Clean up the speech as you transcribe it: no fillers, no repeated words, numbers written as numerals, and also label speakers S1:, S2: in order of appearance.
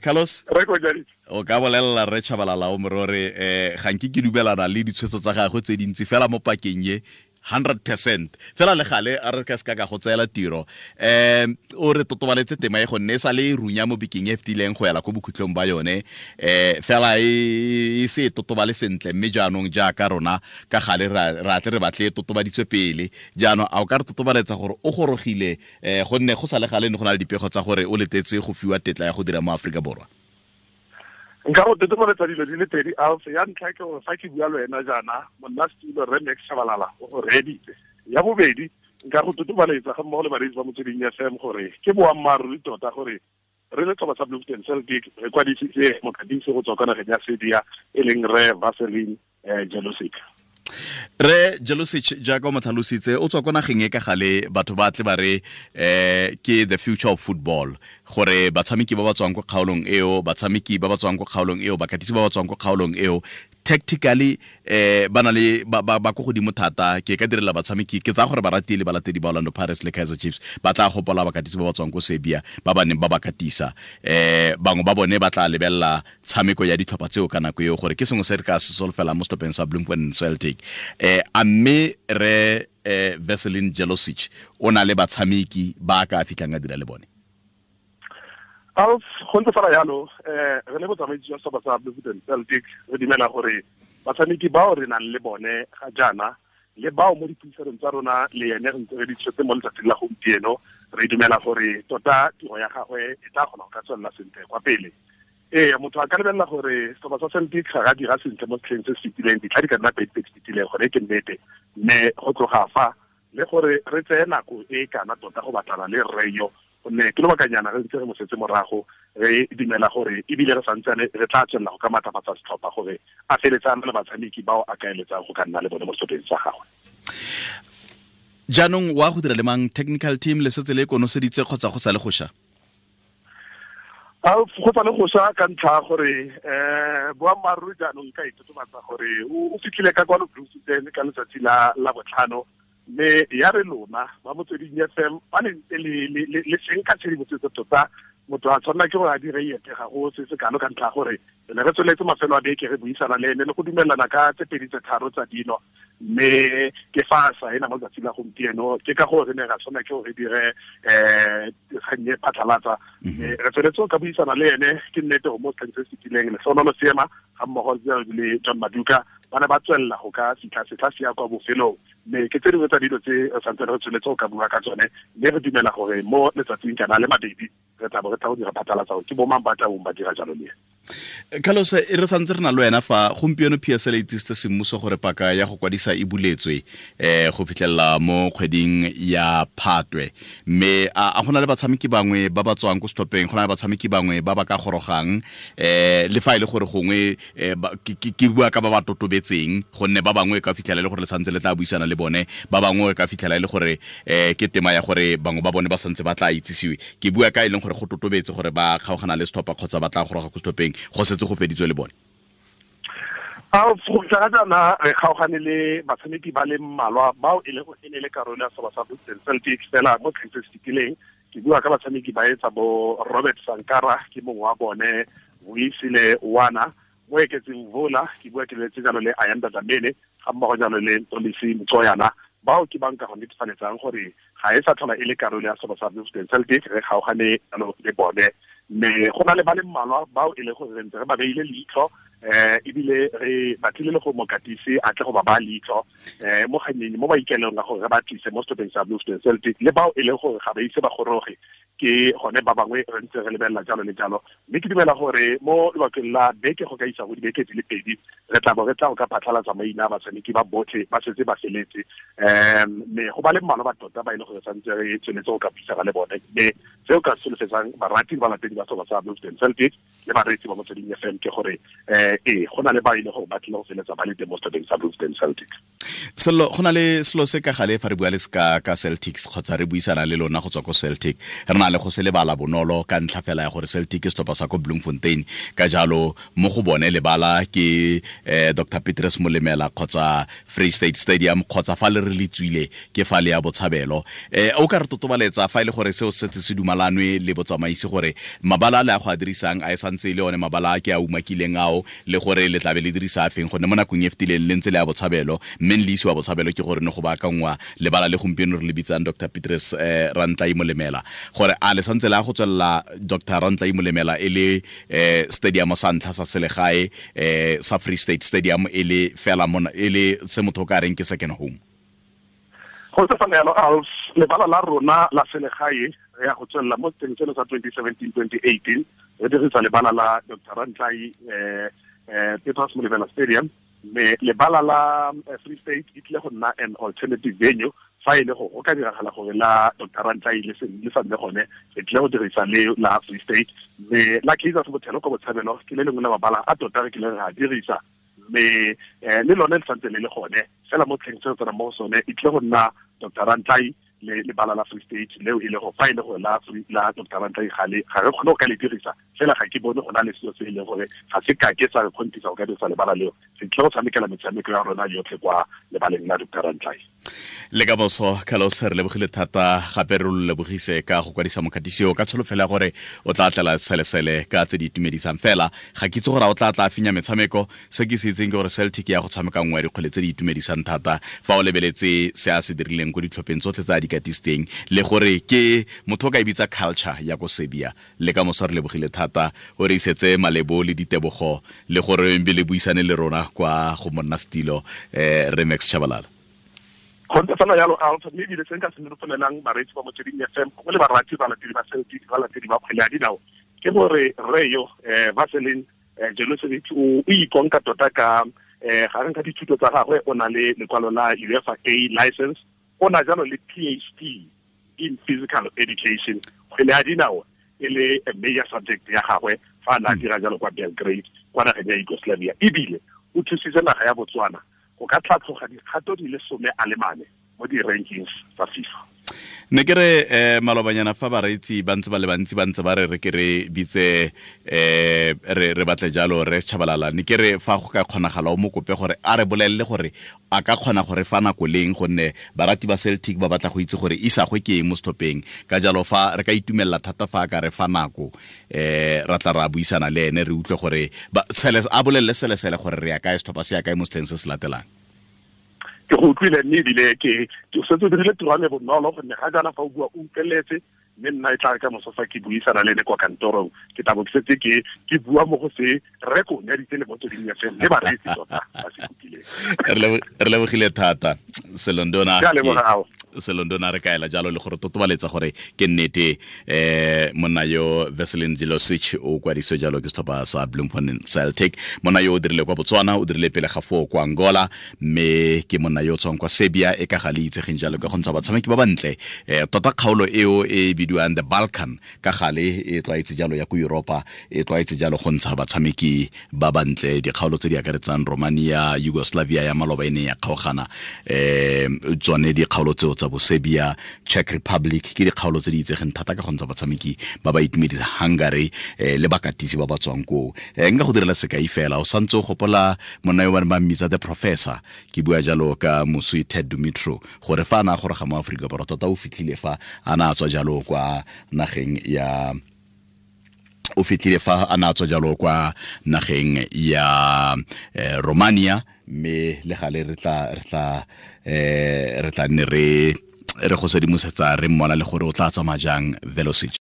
S1: Carlos, o ka bolelela Rre Tshabalala o morore ga nke ke dumelana le ditshwetso tsa gagwe tse dintsi fela mo pakeng ye 100% fela le gale a re ka se ka go tseela tiro. O re totobaletse tema e gonne e sa le runya mo bekeng e fetileng go ela ko bokhutlong ba yone, fela e se e totobale sentle, mme jaanong jaaka rona ka gale ra tle re batle e totobaditswe pele. Jaanong a o ka re totobaletsa gore o gorogile, gonne go sa le gale ne go na le dipego tsa gore o letetse go fiwa tetla ya go dira mo Aforika Borwa?
S2: Nka go totobaletsa dilo di le pedi. Alf, ya ntlha ke gore fa ke bua le wena jaana, monna setulo Rre Max Tshabalala o go reeditse. Ya bobedi, nka go totobaletsa ga mmogo le bareetsi ba Motsweding FM gore ke boammaaruri tota gore re le setlhopha sa Bloemfontein Celtic re kwadisitse mokatisi go tswa kwa nageng ya Serbia, e leng Rre Veselin Jelosic.
S1: Re Jelosic, jaaka o mo tlhalositse, o tswa ko nageng e ka gale batho ba tle ba re ke the future of football, gore batshameki ba ba tswang ko kgaolong eo, batshameki ba ba tswang ko kgaolong eo, bakatisi ba ba tswang ko kgaolong eo, tactically ba na le ba ko godimo thata. Ke ka direla batshameki, ke tsaya gore barati le balatedi ba Orlando Pirates le Kaizer Chiefs ba tla gopola bakatisi ba ba tswang ko Serbia ba ba neng ba ba katisa. Bangwe ba bone ba tla lebelela tshameko ya ditlhopha tseo ka nako eo, gore ke sengwe se re ka se solofela mo setlhopheng sa Bloemfontein Celtic. A mme re Veselin Jelosic o na le batshameki ba ka fitlhang a dira le bone?
S2: Alf, go ntse fela jalo. Re le botsamaisi jwa setlhopha sa Bloemfontein Celtic re dumela gore batshameki bao re nang le bone ga jaana le bao mo dipuisanong tsa rona le ene re ntse re di tshwetse mo letsatsing la gompieno, re dumela gore tota tiro ya gagwe e tla kgona go ka tswelela sentle kwa pele. Ee, motho a ka lebelela gore setlhopha sa Celtic ga ga dira sentle mo setlheng se se fetileng, ditlha di ka nna pedi tse di fetileng, gone ke nnete, mme go tloga fa le gore re tseye nako e kana tota go batlana le rre yo, gonne ke lobakanyana re ntse re mo setse morago. Re dumela gore ebile re santsane re tla tswelela go ka maatlafatsa setlhopha gore a feletse a na le batshameki bao a ka eletsang go ka nna le bone mo setlhopheng sa gagwe.
S1: Jaanong wa go dira le mang? Technical team le setse le konoseditse kgotsa go sa le go sha?
S2: Go sa le go sha ka ntlha gore boammaaruri jaanong ka itotobatsa gore o fitlhile ka kwano Bloemfontein ka letsatsi la botlhano, mme ya re lona ba Motsweding FM ba le ntse le senka tshedimosetso tota, motho a tshwanela ke gore a dire ete ga go se se kalo ka ntlha gore re ne re tsweletse mafelo a beke re buisana le ene le go dumelana ka tse pedi tse tharo tsa dilo, mme ke fa a saena mo letsatsing la gompieno. Ke ka gore re ne ra tshwanela ke gore re dire kgang e phatlhalatsa, mme re tsweletse ka buisana le ene. Ke nnete gore mo setlheng se se fetileng Lehlonolo Seema ga mmogo le John Maduka ba ne ba tswelela go ka fitlha setlha se ya kwa bofelong, mme ke tse dingwe tsa dilo tse re santsane re tsweletse go ka bua ka tsone, mme re dumela gore mo letsatsing kana le mabedi re tla bo re tla go dira phatlalatsa gore ke bo mang ba tla bong ba dira jalo le
S1: ene. Carlos, e re santse re na le wena fa gompieno PSL e itsisitse semmuso gore paka ya go kwadisa e buletswe go fitlhelela mo kgweding ya Phatwe, mme a gona le batshameki bangwe ba ba tswang ko setlhopheng, go na le batshameki bangwe ba ba ka gorogang, le fa e le gore gongwe ke bua ka ba ba totobetseng, gonne ba bangwe ka fitlhela e le gore le santse le tla buisana le bone, ba bangwe ka fitlhela e le gore ke tema ya gore bangwe ba bone ba santse ba tla itsisiwe. Ke bua ka e leng gore go totobetse gore ba kgaogana le setlhopha kgotsa ba tla goroga ko setlhopheng, go setse go feditswe le bone.
S2: Go fitlha ga jaana re kgaogane le batshameki ba le mmalwa bao e leng e ne le karolo ya setlhopha sa Bloemfontein Celtic fela mo setlheng se se fetileng. Ke bua ka batshameki ba etsa bo Robert Sankara, ke mongwe wa bone, Vuyisile Wana, mo eketseng Vola, ke bua ke letse jalo le Ayanda Dlamini, ga mmogo jalo le Ntolisi Mtsoyana. Bao ke banka go netefaletsang gore ga e sa tlhola e le karolo ya setlhopha sa Bloemfontein Celtic, re kgaogane jalo le bone. Mme go na le ba le mmalwa bao e leng gore re ntse re ba beile leitlho, ebile re batlile le go mokatisi a tle go ba baya leitlho mo kgannyeng mo maikaelelong a gore re ba tlise mo setlhopheng sa Bloemfontein Celtic, le bao e leng gore ga ba ise ba goroge, ke gone ba bangwe re ntse re lebelela jalo le jalo. Mme ke dumela gore mo lobakeng la beke go ka isa go dibeke di le pedi re tla bo re tla go ka phatlhalatsa maina a batshameki ba botlhe ba setse ba feletse, mme go ba le mmalwa ba tota ba e leng gore santse re tsweletse go ka buisana le bone. Mme seo ka solofetsang barati le balatedi ba setlhopha sa Bloemfontein Celtic le bareetsi ba Motsweding FM ke gore Go na le ba ile gore ba tlile go feletsa ba le teng mo setlhopheng sa Bloemfontein Celtic.
S1: Selo go na le selo se ka gale fa re bua le ska ka Celtics kgotsa re buisana le lona go tswa ko Celtic, re na le go se lebala bonolo ka ntlha fela ya gore Celtic ke setlhopha sa ko Bloemfontein, ka jalo mo go bone lebala ke Dr. Petrus Molemela kgotsa Free State Stadium kgotsa fa le re le tswile ke fa le ya Botshabelo. O ka re totobaletsa fa ile gore seo se se dumalanwe le botsamaisi gore mabala le a go a dirisang a e santse le one mabala a ke a umakileng ao, le gore le tlabe le dirisa a feng, gonne mo nakong e fetileng le ntse le ya Botshabelo, mme le isiwa Botshabelo ke gore ne go baakangwa lebala le gompieno re le bitsang Dr. Petrus Rantlai Molemela, gore a le santse le a go tswelela Dr. Rantlai Molemela e le stadium sa ntlha sa selegae sa Free State Stadium e le fela mona e le se motho ka reng ke second home.
S2: Go tse fana yalo lebala la rona la selegae re ya go tswelela mo teng seno sa 2017-2018 re dirisa lebala la Dr. Rantlai Petrus Molemela Stadium, mme lebala la Free State e tlile go nna an alternative venue fa e le go go ka diragala gore la Dr. Rantlai le sa nne gone, re tlile go dirisa le la Free State. Mme la Kaizer Bothelo ko Botshabelo ke le lengwe la mabala a tota re kile re a dirisa, mme le lone le santse le le gone fela mo tlheng se tsena mo sone e tlile go nna Dr. Rantlai le lebala la Free State leo e le go fa e le gore la Dr. Rantlai ga re kgone go ka le dirisa fela, ga ke bone go na le selo se e leng gore ga se ka ke sa re kgontisa go ka dirisa lebala leo, re tlile go tshamekela metshameko ya rona yotlhe kwa lebaleng la Dr. Rantlai.
S1: Le ka boso Carlos, re lebogile thata gape re lo lebogise ka go kwadisa mokatisi o ka tsholofelo ya gore o tla tlela selesele ka tse di itumedisang fela. Ga ke itse gore o tla tla finya metshameko, se ke se itseng ke gore Celtic ya go tshameka nngwe ya dikgwele tse di itumedisang thata fa o lebeletse se a se dirileng ko ditlhopheng tsotlhe tse a di katisitseng, le gore ke motho o ka e bitsa culture ya ko Serbia. Le ka moso re lebogile thata o re isetse malebo le ditebogo le gore mbe le buisane le rona kwa go monna setilo re Max Tshabalala.
S2: Go ntse fela yalo Alpha, mme ebile se nka se nolofalelang bareetsi ba Motsweding FM gongwe le barati balatedi ba Celtic, balatedi ba kgwele ya dinao, ke gore rre yo Vaseline Jelosevic o ikonka tota ka gareng ka dithuto tsa gagwe, o na le lekwalo la UEFA A license, o na jalo le PhD in physical education, kgwele ya dinao e le a major subject ya gagwe fa a na dira jalo kwa Belgrade kwa nageng ya Yugoslavia, ebile o thusitse naga ya Botswana go ka tlhatlhoga dikgato di le 14 mo di-rankings tsa FIFA.
S1: Ne ke re malobanyana fa bareetsi ba ntse ba le bantsi ba ntse ba re re ke re bitse re batle jalo re Tshabalala, ne ke re fa go ka kgonagala o mo kope gore a re bolelele gore a ka kgona gore fa nako leng, gonne barati ba Celtic ba batla go itse gore isagwe ke eng mo setlhopheng, ka jalo fa re ka itumelela thata fa a ka re fa nako ra tla ra buisana le ene re utlwe gore a bolelele selesele gore re ya kae, setlhopha se ya kae mo setlheng se se latelang.
S2: Ke go utlwile mme ebile ke setse o dirile tiro ya me bonolo gonne ga jaana fa o bua o utlweletse, mme nna e tla re ka moso fa ke buisana le ene kwa kantorong ke tla bo ke setse ke bua mo go se reko nyaditse le Motsweding FM le bareetsi tota ba se kopileng.
S1: Re lebogile thata Selondona, Selondona re kaela jalo le gore totobaletsa gore ke nnete monna yo Veselin Jelosic o kwadiswe jalo ke setlhopha sa Bloemfontein Celtic. Monna yo o dirile kwa Botswana, o dirile pele ga foo kwa Angola, mme ke monna yo o tswang kwa Serbia e ka ga le itsegeng jalo ka go ntsha batshameki ba bantle. Tota kgaolo eo e bidiwang the Balkan ka gale e tlwaetse jalo ya ko Europa, e tlwaetse jalo go ntsha batshameki ba bantle, dikgaolo tse di akaretsang Romania, Yugoslavia ya maloba e ne ya kgaogana, tsone dikgaolo tseo tsa bo Serbia, Czech Republic ke dikgaolo tse di itsegeng thata ka go ntsha batshameki ba ba itumedisa, Hungary le bakatisi ba ba tswang koo. Nka go direla sekai fela, o santse o gopola monna yo ba neng ba mmitsa the professor, ke bua jalo ka moswi Ted Dumitru, gore fa a na a goroga mo Aforika Borwa tota o fitlhile fa a na a tswa jalo kwa nageng ya o fitlhile fa a na a tswa jalo kwa nageng ya Romania, mme le gale re tla nne re go sedimosetsa re mmona le gore o tla tsamaya jang Velocity.